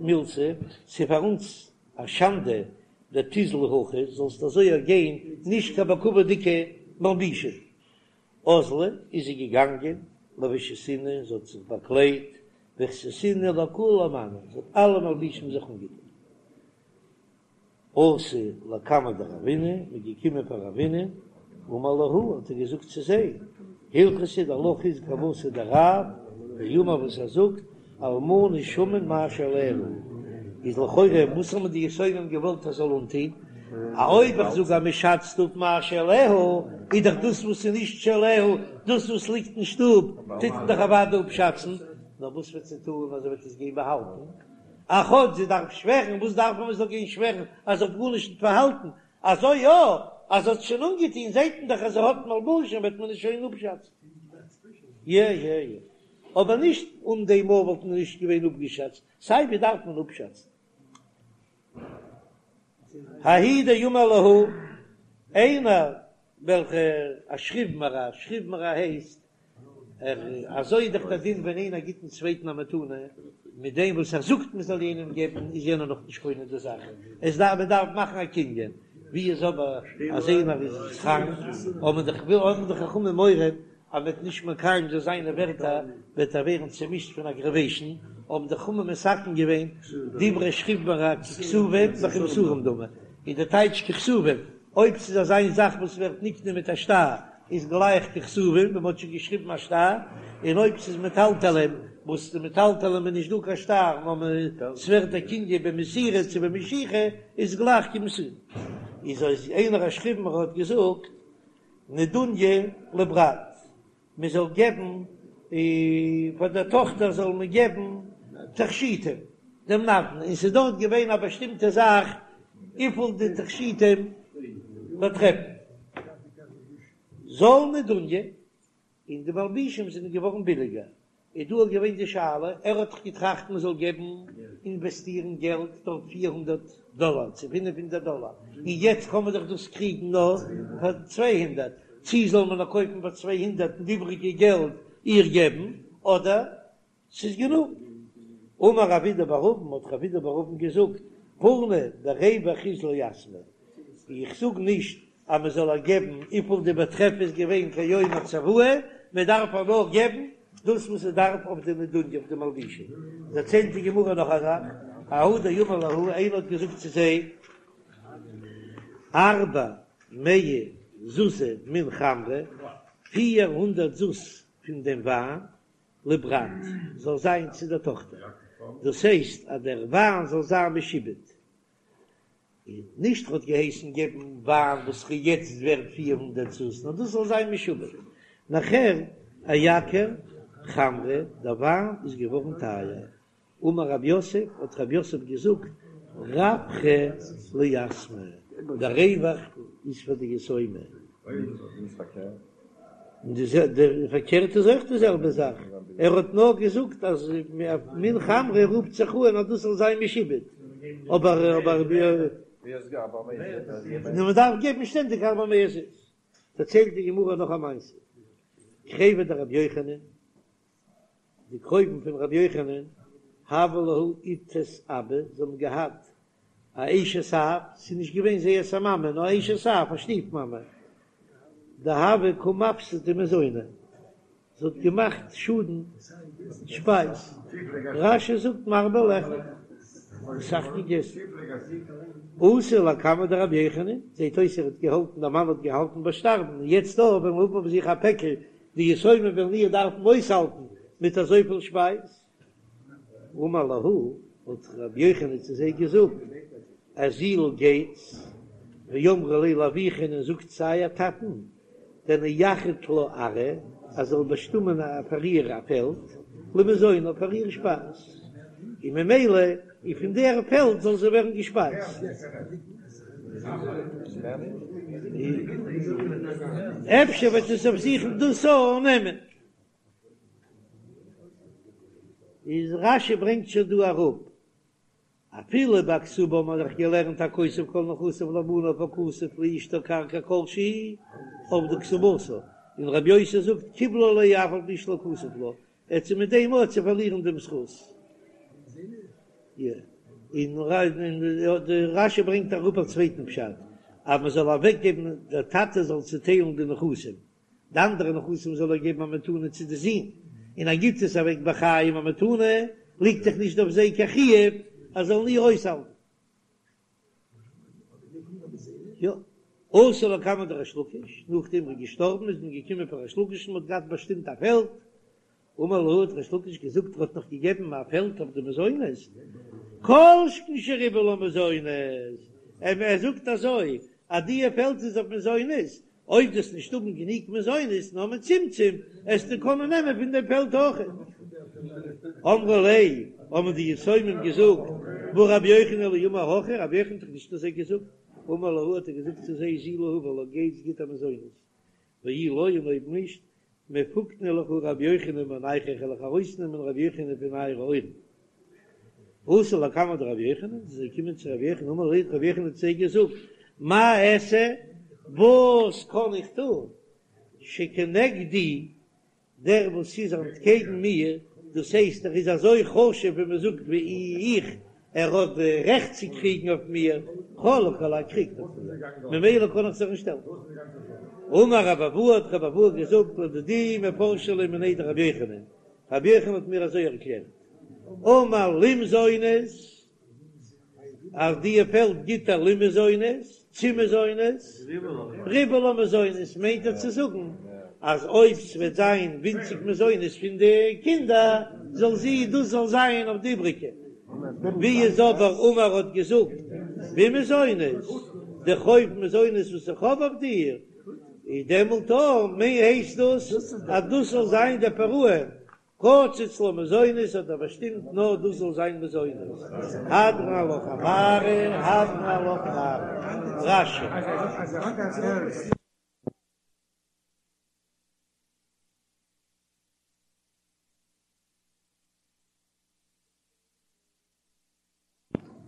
מילתא, ס'איז פאר אונז א שאנדע דתיזלי הכי, זאלסט אזוי גיין נישט קיין בכבוד'דיגע מלבישים. אזלא איז זי געגאנגען, לבישתינהו, זי האט זיך באקליידט, ואכסתינהו לכולהו מאני, זי האט אלע מלבישים זיך אנגעטון. אתו לקמיה דרבינא, מ'איז געקומען פאר רבינא, אמר להו, האט ער געזאגט צו זיי, הלכתא די הלכה איז כוותיה דרב, דאמר וואס ער זאגט, אלמנה שמין מה שעליה, איז לכאורה וואס האבן די יתומים געוואלט ער זאל אנטוהן? א אויב איך זאג אז מען שאצט אפ מה שעליה, איז דאך דאס וואס איז נישט שעליה, דאס וואס ליגט אין שטוב, טוט מען דאך אוודאי אפשאצן, נאר וואס וועט זי טון אז זי וועט עס גיין באהאלטן? א כאטש זי דארף שווערן, וואס דארף מען מען זאל גיין שווערן אז זי האט גארנישט נישט פארהאלטן? אזוי יא, אז זי האט שוין אנגעטון זעט מען דאך אז זי האט מלבושים וועט מען עס שוין אפשאצן. יע יע יע. אבער נישט אן דעם מאל וואלט מען נישט געווען אפגעשאצט, סיי ווי דארף מען אפשאצן. ההוא דאמר להו, איינער וועלכע א שכיב מרע, שכיב מרע הייסט ער, אזוי איז דאך דער דין ווען איינער גיט דעם צווייטן א מתנה, מיט דעם וואס ער זאגט מען זאל יענעם געבן איז יענער נאך נישט קונה די זאך, עס דארף מען דארף מאכן א קנין, ווי איז אבער אז איינער איז קראנק, האבן די האבן די חכמים מורא אז מ'וועט נישט מקיים זיין זיינע ווערטער וועט ער ווערן צעמישט פון אגראוועישן, האבן די חכמים מתקן געווען דברי שכיב מרע ככתובים וכמסורים דמי, איז די טייטש ככתובים, אויב ס'איז אזא זאך וואס ווערט נקנה מיט א שטר איז גלייך ככתובים ווען מ'האט שוין געשריבן א שטר, און אויב ס'איז מטלטלים וואס די מטלטלים איז נישט דא קיין שטר נאר ס'ווערט דער קנין במסירה צו במשיכה איז גלייך כמסורים. איז אויס איינער א שכיב מרע האט געזאגט נדוניא לברת, מען זאל געבן פאר דער טאכטער זאל מען געבן תכשיטים, דעם נדן, און ס'איז דארט געווען א באשטימטע זאך וויפיל די תכשיטים באטרעפן, זל נדוניא, און די מלבישים זענען געווארן ביליגער, איז דא געווען די שאלה, ער האט דאך געטראכט מען זאל געבן אינוועסטירן געלט דארט 400 דאלאר צו 500 דאלאר, און יעצט קען מען דאך דאס קריגן נאר פאר 200, צי זאל מען נאר קויפן פאר 200 און די איבריגע געלט איר געבן, אדער ס'איז גענוג. אמר רב אידי בר אבין, האט רב אידי בר אבין געזאגט, פורנא, דער רווח איז ליתמי, איך זאג נישט אז מען זאל איר געבן וויפיל די באטרעף איז געווען כיום הצוואה, מען דארף איר נאר געבן דאס וואס עס דארף אויף די נדוניא אויף די מלבישים. דערציילט די גמרא נאך א זאך, ההוא דאמר להו, איינער האט געזאגט צו זיי, ארבע מאה זוזי מן חמרא, 400 זוז פון דעם וויין, לברת, זאל זיין צו דער טאכטער, דאס הייסט אז דער וויין זאל זיין משועבד, און נישט ר'האט געהייסן געבן וויין וואס איז יעצט ווערט 400 זוז, נאר דאס זאל זיין משועבד. נאכער אייקר חמרא, דער וויין איז געווארן טייער. אמר רב יוסף, האט רב יוסף געזאגט, רווחא ליתמי, דער רווח איז פאר די יתומים. און די פארקערט איז אויך די זעלבע זאך, ער האט נאר געזאגט אז מן חמרא רופט זיך אן אז דאס זאל זיין משועבד, אבער אבער מען דארף געבן שטענדיג ארבע מאות זוז. דערציילט די גמרא נאך א מעשה, קריבי דרבי יוחנן, די קרובים פון רבי יוחנן, הוה להו איתת אבא, זיי האבן געהאט א אשת אב, ס'איז נישט געווען זייערס א מאמע, נאר אשת אב, א שטיף מאמע, דהוה קא מפסדא מזוני, זי האט געמאכט שאדן שפייז, רש"י זאגט מרבה לאכול, אסאך געגעסן. אתו לקמיה דרבי יוחנן, זעט אויס ער האט געהאלטן, דער מאן האט געהאלטן ביי שטארבן, און יעצט דא וועלן האבן אויף זיך א פעקל, די יתומים וועלן איר דארפן אויסהאלטן מיט אזויפיל שפייז. אמר להו, האט רבי יוחנן צו זיי געזאגט, אזילו גייטס, ואמרו ליה לאבוכון און זאגט צו אייער טאטן, דנייחד לה ארעא, אז זאל באשטימען פאר איר א פעלד, למזונה פאר איר שפייז, און ממילא און פון דער פעלד זאל זי ווערן געשפייזט. אפשר וועט עס אויף זיך דאס אננעמען. איז רש"י ברענגט שוין דא אראפ, אפילו ביי כתובה האט מען דאך געלערנט הכותב כל נכסיו לבניו הכתוב לאשתו קרקע כל שהוא אבדה כתובתה, און רבי יוסי זאגט קיבלה עליה אף על פי שלא כתב לה, ער צו מיט דעם אויך צו פארלירן דעם זכות. און רש"י ברענגט אראפ א צווייטן פשט, אז מען זאל אוועקגעבן, דער טאטע זאל צוטיילן די נכסים, די אנדערע נכסים זאל ער געבן א מתנה צו די זין, און ער גיבט עס אוועק בחיים א מתנה, ליגט דאך נישט אויף זיי קיין חיוב אז זאלן איר אויסהאלטן. יא, אתו לקמיה דריש לקיש, נאכדעם ער איז געשטארבן איז מען געקומען פאר ריש לקיש און מען האט געהאט באשטימט א פעלד, אמר להו האט ריש לקיש געזאגט ער האט נאך געגעבן א פעלד אויף די מזונות, כל שכן שריבה לה מזונות, ער זאגט אזוי אז די פעלד איז אויף מזונות, אויב דו וועסט נישט האבן גענוג מזונות נאר מצומצם, עסטו קענען נעמען פון דעם פעלד אויך. אמרו ליה, האבן די יתומים געזאגט, והא רבי יוחנן לא אמר הכי, רבי יוחנן האט דאך נישט אזוי געזאגט. אמר להו האט ער געזאגט צו זיי, זילו הבו לה, גייטס גיט איר מזונות, ואי לא און אויב נישט, מפקנא לכו רבי יוחנן מאונייכו, איך וועל אייך ארויסנעמען רבי יוחנן פון אייערע אויערן. אתו לקמיה דרבי יוחנן, זיי זענען געקומען צו רבי יוחנן, אמר להו, רבי יוחנן האט צו זיי געזאגט, מה אעשה, וואס קען איך טון, שכנגדי, דער וואס איז אנטקעגן מיר, דאס הייסט ער איז אזוי חשוב ווי מען זאגט ווי איך, ער האט די רעכט צו קריגן אויף מיר, חלוק עלי קריגט אויף מיר, ממילא קען איך זיך נישט שטעלן. אמר רבי אבהו האט רבי אבהו געזאגט לדידי מפרשא לי מיניה דרבי יוחנן, רבי יוחנן האט מיר אזוי ערקלערט, אמר למזונות, אז די פעלד גיט ער למזונות, צו מזונות, ריבה לה מזונות מיינט ער צו זאגן אז אויב ס'וועט זיין ווינציג מזונות פון די קינדער זאל זי דאס זאל זיין אויף די איבריגע, ווי איז אבער אמר האט געזאגט במזונות, די חוב מזונות וואס איך האב אויף דיר, איז דעמאלט הייסט דאס אז דאס זאל זיין די פירעון. קצץ לה מזונות האט ער באשטימט נאר דאס זאל זיין מזונות, הדרן עלך הנערה, הדרן עלך נערה, רש"י.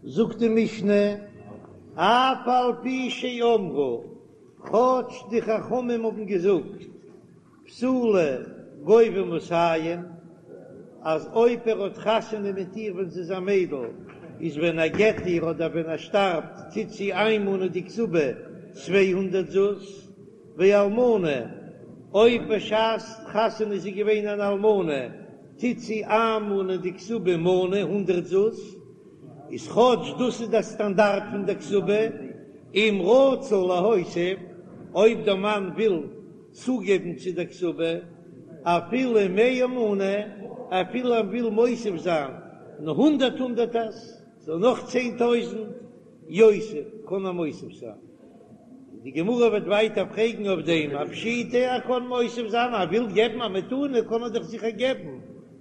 זאגט די משנה, אף על פי שאמרו, כאטש די חכמים האבן געזאגט, בתולה גובה מאתים, אז אויב ער האט חתונה מיט איר ווען זי איז א מיידל, איז ווען ער גט איר אדער ווען ער שטארבט טוט זי איינמאנען די כתובה 200 זוז, ואלמנה, אויב בשעת חתונה איז זי געווען אן אלמנה, טוט זי איינמאנען די כתובה מנה, הונדרעט זוז, איז כאטש דאס איז דער סטאנדארט פון דער כתובה, אם רצה להוסיף, אויב דער מאן וויל צוגעבן צו דער כתובה, אפילו מאה מנה, אפילו ער וויל מוסיף זיין הונדרעט הונדרעטערס, סאו נאך 10,000 יוסיף, קען ער מוסיף זיין. די גמרא וועט ווייטער פרעגן אויף דעם, א פשיטא ער קען מוסיף זיין, ער וויל געבן א מתנה קען ער דאך זיכער געבן,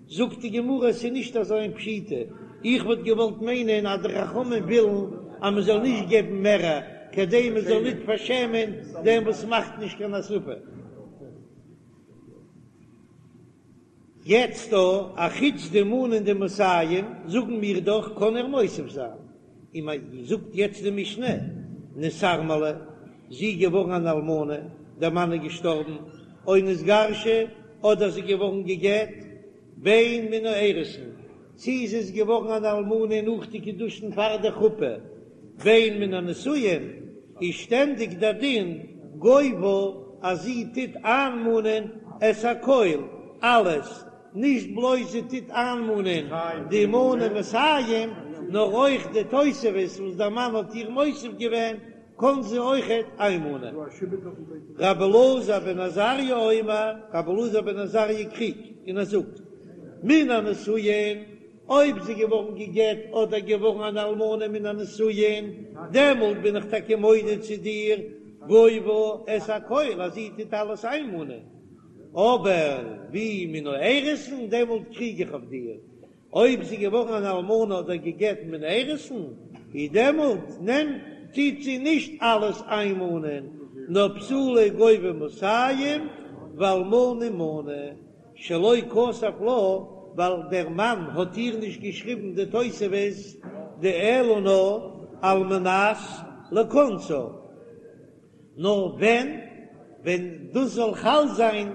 זאגט די גמרא עס איז נישט אזוי איין פשיטא, איך וואלט געוואלט מיינען אז די חכמים ווילן אז מען זאל נישט געבן מערער כדי מען זאל ניט פארשעמען דעם וואס מאכט נישט קיין הוספה. יעצט דא, א חוץ די מנה און די מאתים, זאגן מיר דאך קען ער מוסיף זיין, און מען זאגט יעצט די משנה, נתארמלה, זי איז געווארן אן אלמנה, דער מאן איז געשטארבן, או נתגרשה, אדער זי איז געווארן גע'גט, בין מן האירוסין, צי זי איז געווארן אן אלמנה נאך די קידושין פאר די חופה, בין מן הנישואין, איז שטענדיג דער דין גובה אז זי טוט איינמאנען את הכל, אלעס, נישט בלויז זי טוט איינמאנען די מנה מאתים, נאר אויך די תוספת וואס דער מאן האט איר מוסיף געווען, קען זי אויכעט איינמאנען. רבי אלעזר בן עזריה אומר, רבי אלעזר בן עזריה קריגט און ער זאגט, מן הנישואין, אויב זי געווארן גע'גט אדער געווארן אן אלמנה מן הנישואין, דעמאלט בין איך טאקע מודה צו דיר, גובה את הכל, אז זי טוט אלעס איינמאנען, אבער ווי מן האירוסין, דעמאלט קריג איך אויף דיר, אויב זי געווארן אן אלמנה אדער גע'גט מן האירוסין, איז דעמאלט נעמט טוט זי נישט אלעס איינמאנען, נאר בתולה גובה מאתים ואלמנה מנה, שלא כתב לה, ווייל דער מאן האט איר נישט געשריבן די תוספת דאלא נאר על מנת לכונסה. נאר ווען ווען דאס זאל חל זיין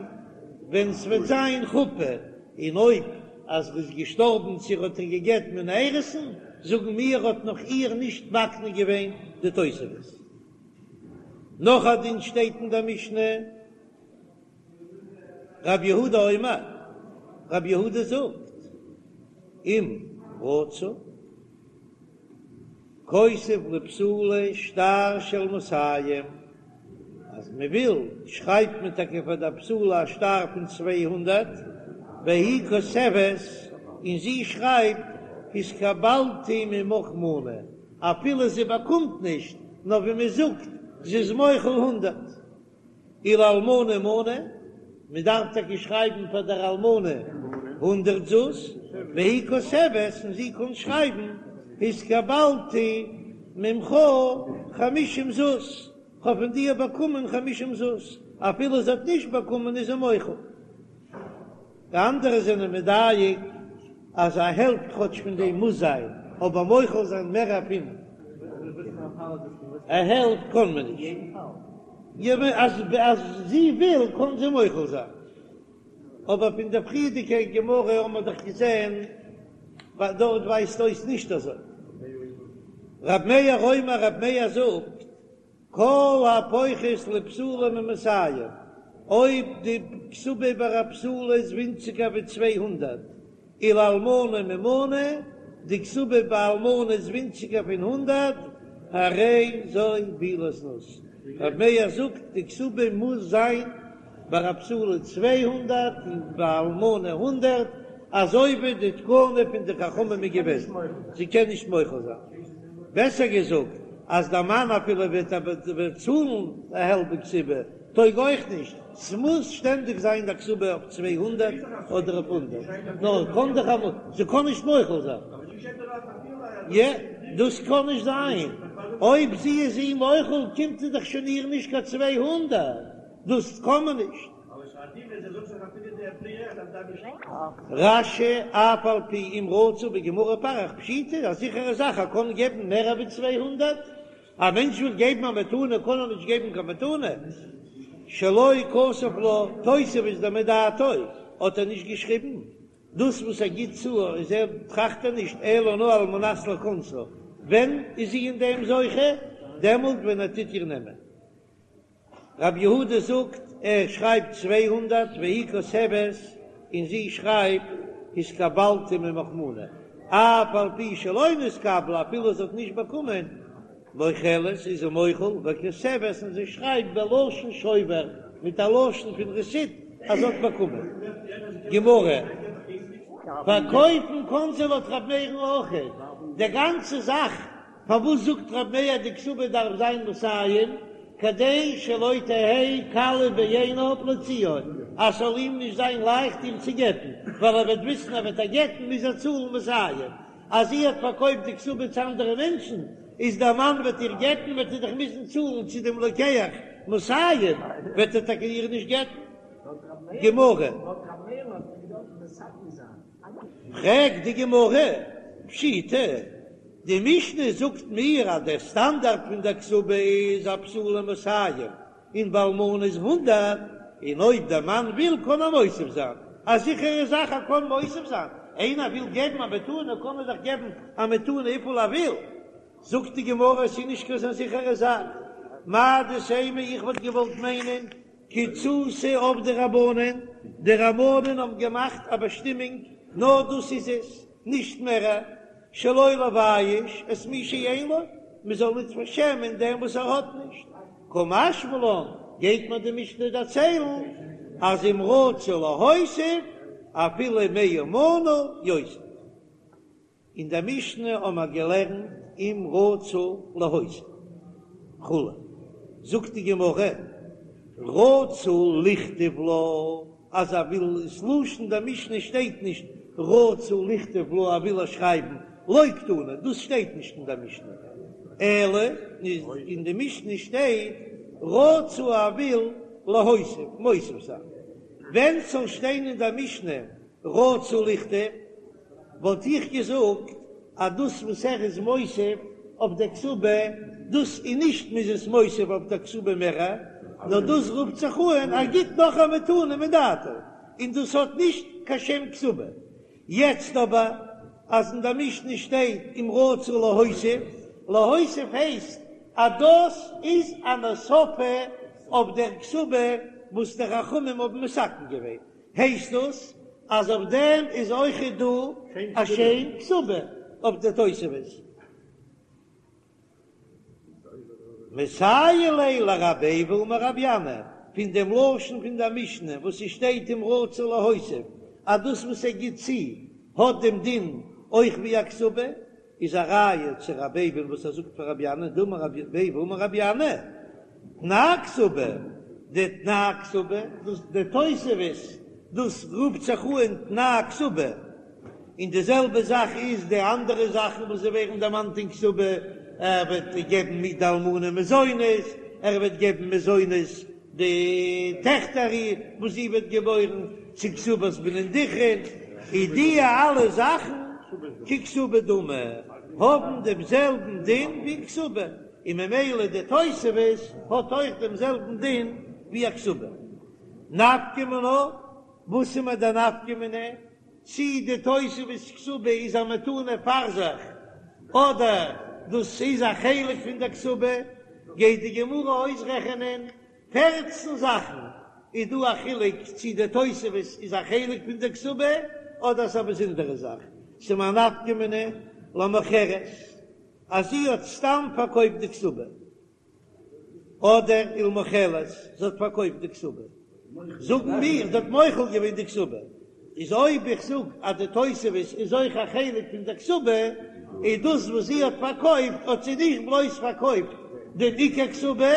ווען ס'וועט זיין חופה, און אויב אז ר'איז געשטארבן צו ר'האט איר גע'גט מן האירוסין, זאגן מיר האט נאך איר נישט מקנה געווען די תוספת. נאך א דין שטייט אין דער משנה, רב יהודה אומר, רב יהודה זאגט, אם רצה. כותב לבתולה שטר של מאתים, אז מען וויל שרייבט מען טאקע פאר דער בתולה א שטר פון 200, והיא כותבת, און זי שרייבט התקבלתי ממך מנה, אפילו זי באקומט נישט, נאר ווי מען זאגט זי איז מוחל הונדערט. ולאלמנה מנה, מען דארף טאקע שרייבן פאר דער אלמנה הונדערט זוז, והיא כותבת, און זי קען שרייבן התקבלתי ממך חמישים זוז, כ'האב פון דיר באקומען חמישים זוז, אפילו זי האט נישט באקומען איז זי מוחל. די אנדערע זענען מדייק אז א העלפט כאטש פון דעם מוז זיין, אבער מוחל זיין מער פון א העלפט קען מען נישט. אז זי וויל קען זי מוחל זיין. אבער פון דער פריערדיגער גמרא האבן מיר דאך געזען דארט ווייזט אויס נישט אזוי. רב מאיר אומר רב מאיר זאגט כל הפוחת לבתולה ממאתים, אויב די כתובה ביי א בתולה איז ווינציגער ווי 200, ולאלמנה ממנה, די כתובה ביי אלמנה איז ווינציגער פון הונדערט, הרי זו בעילת זנות. רב מאיר זאגט די כתובה מוז זיין ביי א בתולה 200 און ביי אלמנה הונדערט, אזוי ווי די תקנה פון די חכמים איז געוועזן, זי קען נישט מוחל זיין. בעסער געזאגט, אז דער מאן אפילו וועט צאלן א האלבע כתובה, טויג אויך נישט, ס'מוז שטענדיג זיין די כתובה אויף 200 אדער אויף הונדערט, נאר קען דאך אמאל, זי קען נישט מוחל זיין. יע, דאס קען נישט זיין, אויב זי איז אים מוחל קומט זי דאך שוין איר נישט קיין 200, דאס קען מען נישט. רש"י, אף על פי אם רצה בגמרא פריך פשיטא, א זיכערע זאך ער קען געבן מער ווי 200, א מענטש וויל געבן א מתנה קען ער נישט געבן קיין מתנה, שלא כתב לה תוספת דמדעתו האט ער נישט געשריבן, דאס וואס ער גיט צו איז ער טראכט ער נישט אלא נאר על מנת לכונסה, ווען איז זי אין דעם זוכה? דעמאלט ווען ער טוט איר נעמען. רב יהודה זאגט ער שרייבט 200 והיא כותבת און זי שרייבט התקבלתי ממך מנה אף על פי שלא נתקבלה אפילו זי האט נישט באקומען מוחלת איז זי מוחל וכותבת און זי שרייבט בלשון שובר מיט א לשון פון רעסיט אז זי האט באקומען. גמרא. פארקויפן קאן זי לויט רב מאיר'ן אויכעט די גאנצע זאך פארוואס זאגט רב מאיר די כתובה דארף זיין מאתים כדי שלא תהא קלה בעיניו להוציאה אז ס'זאל אים נישט זיין לייכט איר צו גט'ן, ווייל ער וועט וויסן אז וועט ער גט'ן מוז ער צאלן מאתים, אז זי האט פארקויפט די כתובה צו אנדערע מענטשן, איז דער מאן וועט איר גט'ן וועט ער דאך מוזן צאלן צו דעם לוקח מאתים, וועט ער טאקע איר נישט גט'ן. גמרא. פרעגט די גמרא, פשיטא, די משנה זאגט מיר אז דער סטאנדארט פון דער כתובה איז א בתולה מאתים און ביי אלמנה איז הונדערט, און אויב דער מאן וויל קען ער מוסיף זיין, א זיכערע זאך ער קען מוסיף זיין, איינער וויל געבן א מתנה קען ער דאך געבן א מתנה וויפיל ער וויל, זאגט די גמרא עס איז נישט קיין אזא זיכערע זאך, מהו דתימא איך וואלט געוואלט מיינען קיצותא עבדו רבנן, די רבנן האבן געמאכט א באשטימונג, נאר דאס איז עס, נישט מער, שלא לבייש את מי שאין לו, מען זאל ניט פארשעמען דעם וואס ער האט נישט. קא משמע לן, גייט מיר די משנה דערציילן, אז אם רצה להוסיף, אפילו מאה מנה יוסיף. אין דער משנה האבן מיר געלערנט אם רצה להוסיף כו', זאגט די גמרא, רצה לכתוב לה, אז ער וויל, איז לשון דער משנה שטייט נישט רצה לכתוב לה ער וויל איר שרייבן, לא קתני, דאס שטייט נישט אין דער משנה, אלא אין די משנה שטייט רצה ער וויל להוסיף, מוסיף זיין, ווען ס'זאל שטיין אין דער משנה רצה לכתוב וואלט איך געזאגט אז דאס וואס ער איז מוסיף אויף דער כתובה, דאס איז נישט מ'איז עס מוסיף אויף דער כתובה מער, נאר דאס רופט זיך אן ער גיט נאך א מתנה מדעתו, און דאס האט נישט קיין שם כתובה. יעצט אבער אז אין דער משנה שטייט אם רצה להוסיף, להוסיף הייסט אז דאס איז אן הוספה אויף דער כתובה וואס די חכמים האבן מתקן געווען, הייסט דאס אז אויף דעם איז אויכעט דא א שם כתובה אויף די תוספת. מסייע ליה לרבי איבו אמר רבי ינאי, פון דעם לשון פון דער משנה וואס ס'שטייט אם רצה להוסיף אז דאס וואס ער גיט צו האט דעם דין אויך ווי א כתובה, איז א ראיה צו רבי איבו וואס ער זאגט פאר רבי ינאי דאמר רבי איבו אמר רבי ינאי תנאי כתובה, די תנאי כתובה, דאס די תוספת, דאס רופט זיך אן תנאי כתובה, און די זעלבע זאך איז די אנדערע זאכן וואס זיי ווערן דערמאנט אין כתובה, ער וועט געבן מיט די אלמנה מזונות, ער וועט געבן מזונות. די טעכטער וואס זי וועט געבוירן, צו כתובת בנין דכרין, איז די אלע זאכן ככתובה דמי, האבן דעם זעלבן דין ווי כתובה, און ממילא די תוספת האט אויך דעם זעלבן דין ווי א כתובה. נפקא מינה, וואס איז מיר די נפקא מינה? צי די תוספת כתובה איז א מתנה פאר זיך, אדער דאס איז א חלק פון די כתובה, גייט די גמרא אויסרעכענען פערצן זאכן, איז דא א חילוק צי די תוספת איז א חלק פון די כתובה אדער ס'איז א באזונדערע זאך, ס'איז מיר א נפקא מינה למוכרת אז זי האט סתם פארקויפט די כתובה. אדער ולמוחלת, זי האט פארקויפט די כתובה, זאגן מיר זי האט מוחל געווען די כתובה, איז אויב איך זאג אז די תוספת איז אויך א חלק פון די כתובה, איז דאס וואס זי האט פארקויפט האט זי נישט בלויז פארקויפט דעם עיקר כתובה,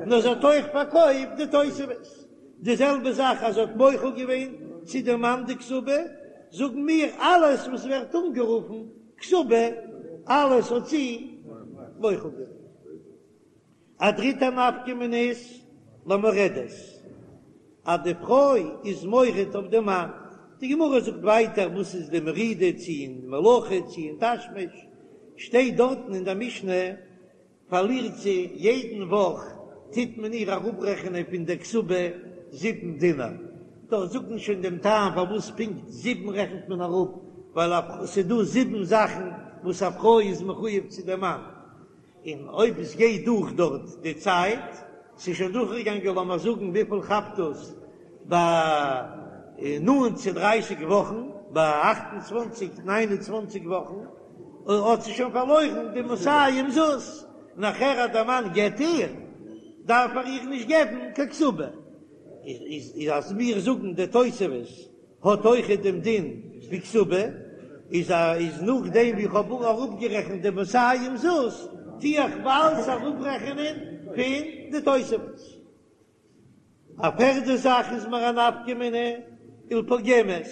נאר זי האט אויך פארקויפט די תוספת. די זעלבע זאך אז זי האט מוחל געווען צו דער מאן די כתובה, זאגן מיר אלעס וואס ווערט אנגערופן כתובה, אלעס האט זי מוחל געווען. א דריטע נפקא מינה איז למורדת, אז די פרוי איז מורד אויף די מאן, די גמרא זאגט ווייטער וואס איז די מרידה, צו אין מלאכה צו אין תשמיש, שטייט דארטן אין די משנה, פארלירט זי יעדן וואך טוט מען איר אראפרעכענען פון די כתובה זיבן דינר, דארט זאגט מען שוין דעם טעם פארוואס פונקט זיבן רעכנט מען אראפ, ווייל ס'איז דא זיבן זאכן וואס א פרוי איז מחויב צו דעם מאן, און אויב עס גייט דורך דארט די צייט, ס'איז שוין דורכגעגאנגען לאמיר זאגן וויפיל כאפט דאס ביי נאנט צו דרייסיג וואכן, ביי אכט און צוואנציג ניין און צוואנציג וואכן, האט זי שוין פארלוירן די מאתים זוז, נאכער אז דער מאן גט איר, דארף ער איר נישט געבן קיין כתובה. איז אז מיר זאגן די תוספת האט אויכעט דעם דין ווי כתובה, איז א איז נאכדעם ווי איך האב אראפגערעכנט די מאתים זוז, טו איך אלץ אראפרעכענען פון די תוספת. א פערדע זאך איז מיר א נפקא מינה ולפוגמת,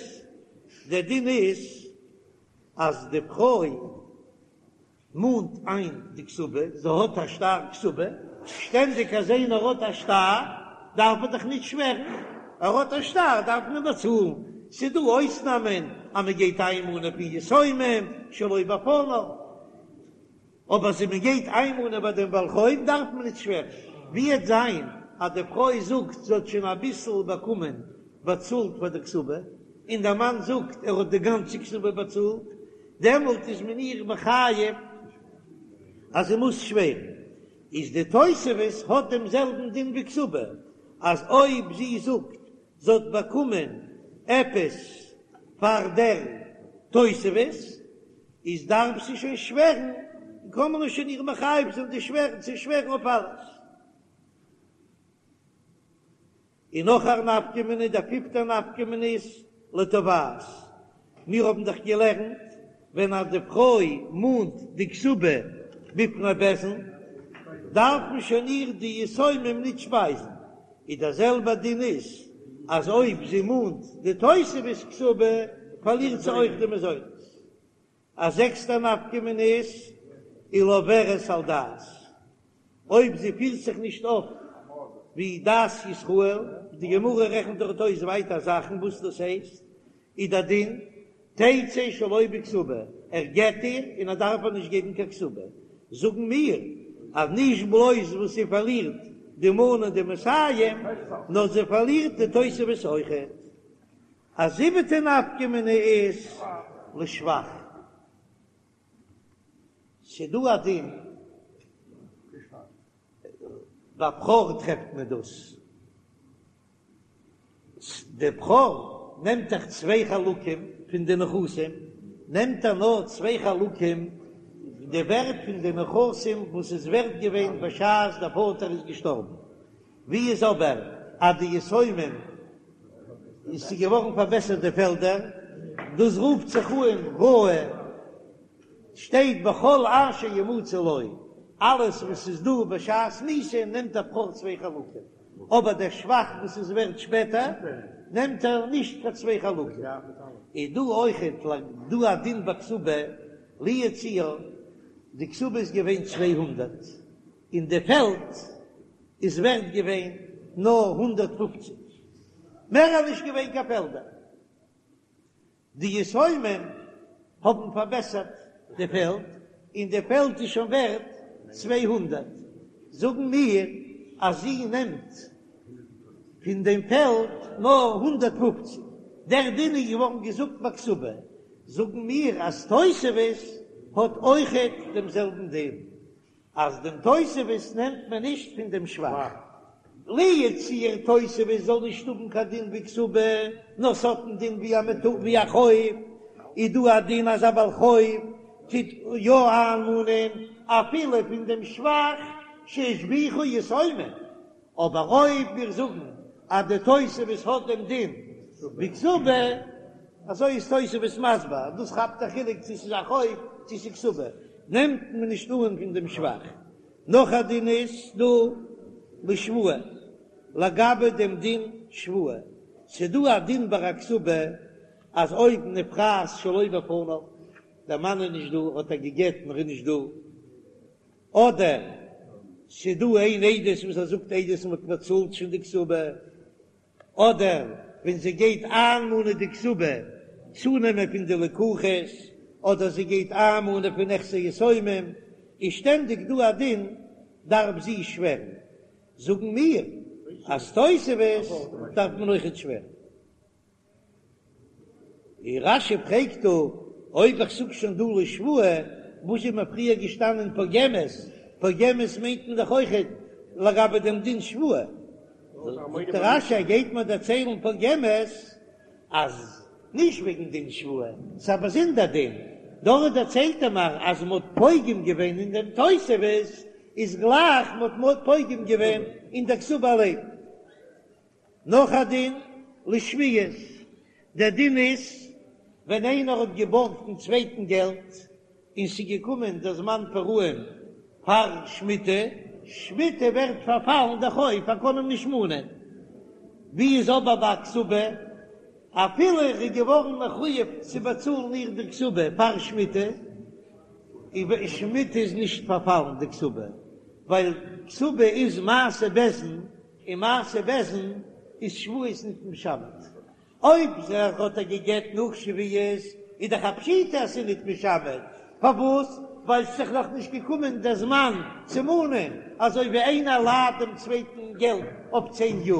דער דין איז אז די פרוי מאנט איין די כתובה, זי האט א שטר כתובה, שטענדיג אז איינער האט א שטר דארף ער דאך נישט שווערן, ער האט א שטר דארף מען באצאלן, ס'איז דא אויסנאמען אז מען גייט איינמאנען פון יתומים שלא בפניו, אבער אז מען גייט איינמאנען ביי דעם בעל חוב דארף מען נישט שווערן. ווי עט זיין אז די פרוי זאגט זי האט שוין אביסל באקומען באצאלט פאר די כתובה, און דער מאן זאגט ער האט די גאנצע כתובה באצאלט, דעמאלט איז מען איר מחייב אז זי מוז שווערן. איז די תוספת האט דעם זעלבן דין ווי כתובה, אז אויב זי זאגט זי האט באקומען עפעס פאר דער תוספת, איז דארף זי שוין שווערן, קען מען שוין איר מחייב זיין די שווערן צו שווערן אויף אלעס. און נאך א נפקא מינה, דער פיפטער נפקא מינה איז לתובעת. מיר האבן דאך געלערנט ווען אז די פרוי מאנט די כתובה בפני בית דין, דארף מען שוין איר די יתומים ניט שפייזן, איז דער זעלבער דין איז אז אויב זי מאנט די תוספת כתובה פארלירט זי אויך די מזונות. א זעקסטע נפקא מינה איז ולעוברת על דת, אויב זי פירט זיך נישט אויף ווי דת ישראל, די גמרא רעכנט דארט אויס ווייטער זאכן וואס דאס הייסט, איז דער דין תצא שלא בכתובה, ער גט איר און ער דארף איר נישט געבן קיין כתובה, זאגן מיר אז נישט בלויז וואס זי פארלירט די מנה דמאתים, נאר זי פארלירט די תוספת אויכעט. א זיבעטע נפקא מינה איז לשבח. ס'דא א דין ביי בכור טרעפט מען דאס. די בכור נעמט דאך צוויי חלקים פון די נכסים, נעמט ער נאר צוויי חלקים די ווערט פון די נכסים וואס איז ווערט געווען בשעת דער פאטער איז געשטארבן, ווי איז אבער אז די יתומים איז ס'געווארן פארבעסערט די פעלדער, דאס רופט זיך אן ראוי, שטייט בכל אשר ימצא לו, אלעס וואס איז דא בשעת מיתה נעמט דער בכור צוויי חלקים, אבער דער שבח וואס איז ווערט שפעטער נעמט ער נישט קיין צוויי חלקים. איז דא אויכעט דא א דין בכתובה, לו יצוייר, די כתובה איז געווען 200 און די פעלד איז ווערט געווען. נאר 150, מער איז נישט געווען קיין פעלדער. די יתומים האבן פארבעסערט די פעלד, און די פעלד איז שוין ווערט 200, זאגן מיר אז זי נעמט פון דעם פעלד נאר 150, דער דין איז געווארן געזאגט ביי כתובה, זאגן מיר אז תוספת האט אויכעט דעם זעלבן דין. אז דעם תוספת נעמט מען נישט פון דעם שבח, לו יצוייר תוספת זאל נישט האבן קיין דין ווי כתובה, נאר ס'האט א דין ווי א מטו ווי א חוב, איז דא א דין אז א בעל חוב טוט יא איינמאנען אפילו פון דעם שבח שהשביחו יתומים, אבער אויב מיר זאגן אז די תוספת האט דעם דין ווי כתובה, אזוי איז תוספות מסביר אז דאס כאפט א חילוק צו ס'איז א חוב צו ס'איז כתובה, נעמט מען נישט אן פון דעם שבח. נאך א דין איז דא לשבועה, לגבי דעם דין שבועה, ס'איז דא א דין ביי א כתובה אז אויב נפרעת שלא בפניו, דער מאן איז נישט דא, האט ער גע'גט און ער איז נישט דא, אדער ס'איז דא איין עדות וואס ער זאגט עדות און מ'האט באצאלט שוין די כתובה, אדער ווען זי גייט איינמאנען די כתובה צונעמען פון די לקוחות, אדער זי גייט איינמאנען פון נכסי יתומים, איז שטענדיג דא א דין דארף זי שווערן, זאגן מיר אז תוספת דארף מען אויכעט שווערן. און רש"י פרעגט דא, אויב איך זאג שוין דא לשבועה, וואס איז מיר פריער געשטאנען פוגמת, פוגמת מיינט מען דאך אויכעט לגבי דעם דין שבועה, זאגט רש"י ער גייט מיר דערציילן פוגמת אז נישט וועגן דין שבועה, ס'איז א באזונדער דין, דארט דערציילט ער מיר אז מ'האט פוגם געווען אין דעם תוספת, איז גלייך מ'האט פוגם געווען אין דער כתובה אליין. נאך א דין לשביעית, דער דין איז ווען איינער האט געבארגט דעם צווייטן געלט און ס'איז געקומען דער זמן פרעון פאר שמיטה, שמיטה ווערט פארפאלן דער חוב, ער קען אים נישט מאנען, ווי איז אבער ביי א כתובה, אפילו ער איז געווארן מחויב צו באצאלן איר די כתובה פאר שמיטה, איז שמיטה איז נישט פארפאלן די כתובה, ווייל כתובה איז מעשה בית דין. און מעשה בית דין איז שבועות ניט משמט. אויב זיך האט ער געגט נאך שביעית איז דאך א פשיטא אז ס'איז ניט משמט. פארוואס? ווייל ס'איז דאך נאך נישט געקומען דער זמן צו מאנען, אזוי ווי איינער לייט דעם צווייטן געלט אויף צען יאר,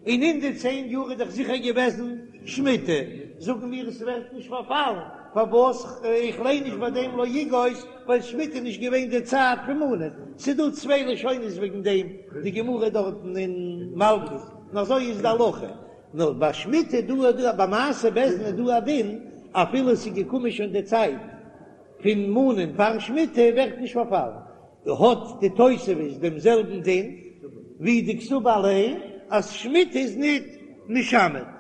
און אין די צען יאר איז דאך זיכער געוועזן שמיטה, זאגן מיר עס ווערט נישט פארפאלן, פארוואס? איך ליין נישט ביי דעם לא יגוש, ווייל שמיטה איז נישט געווען די צייט פון מאנען, ס'איז דא צוויי לשונות וועגן דעם, די גמרא דארטן אין מלקות, און אזוי איז די הלכה, נאר ביי שמיטה איז דא דא ביי מעשה בית דין איז דא א דין, אפילו ס'איז געקומען שוין די צייט פון מאנען פאר שמיטה ווערט נישט פארפאלן, האט די תוספת דעם זעלבן דין ווי די כתובה אליין אז שמיטה איז ניט משמט.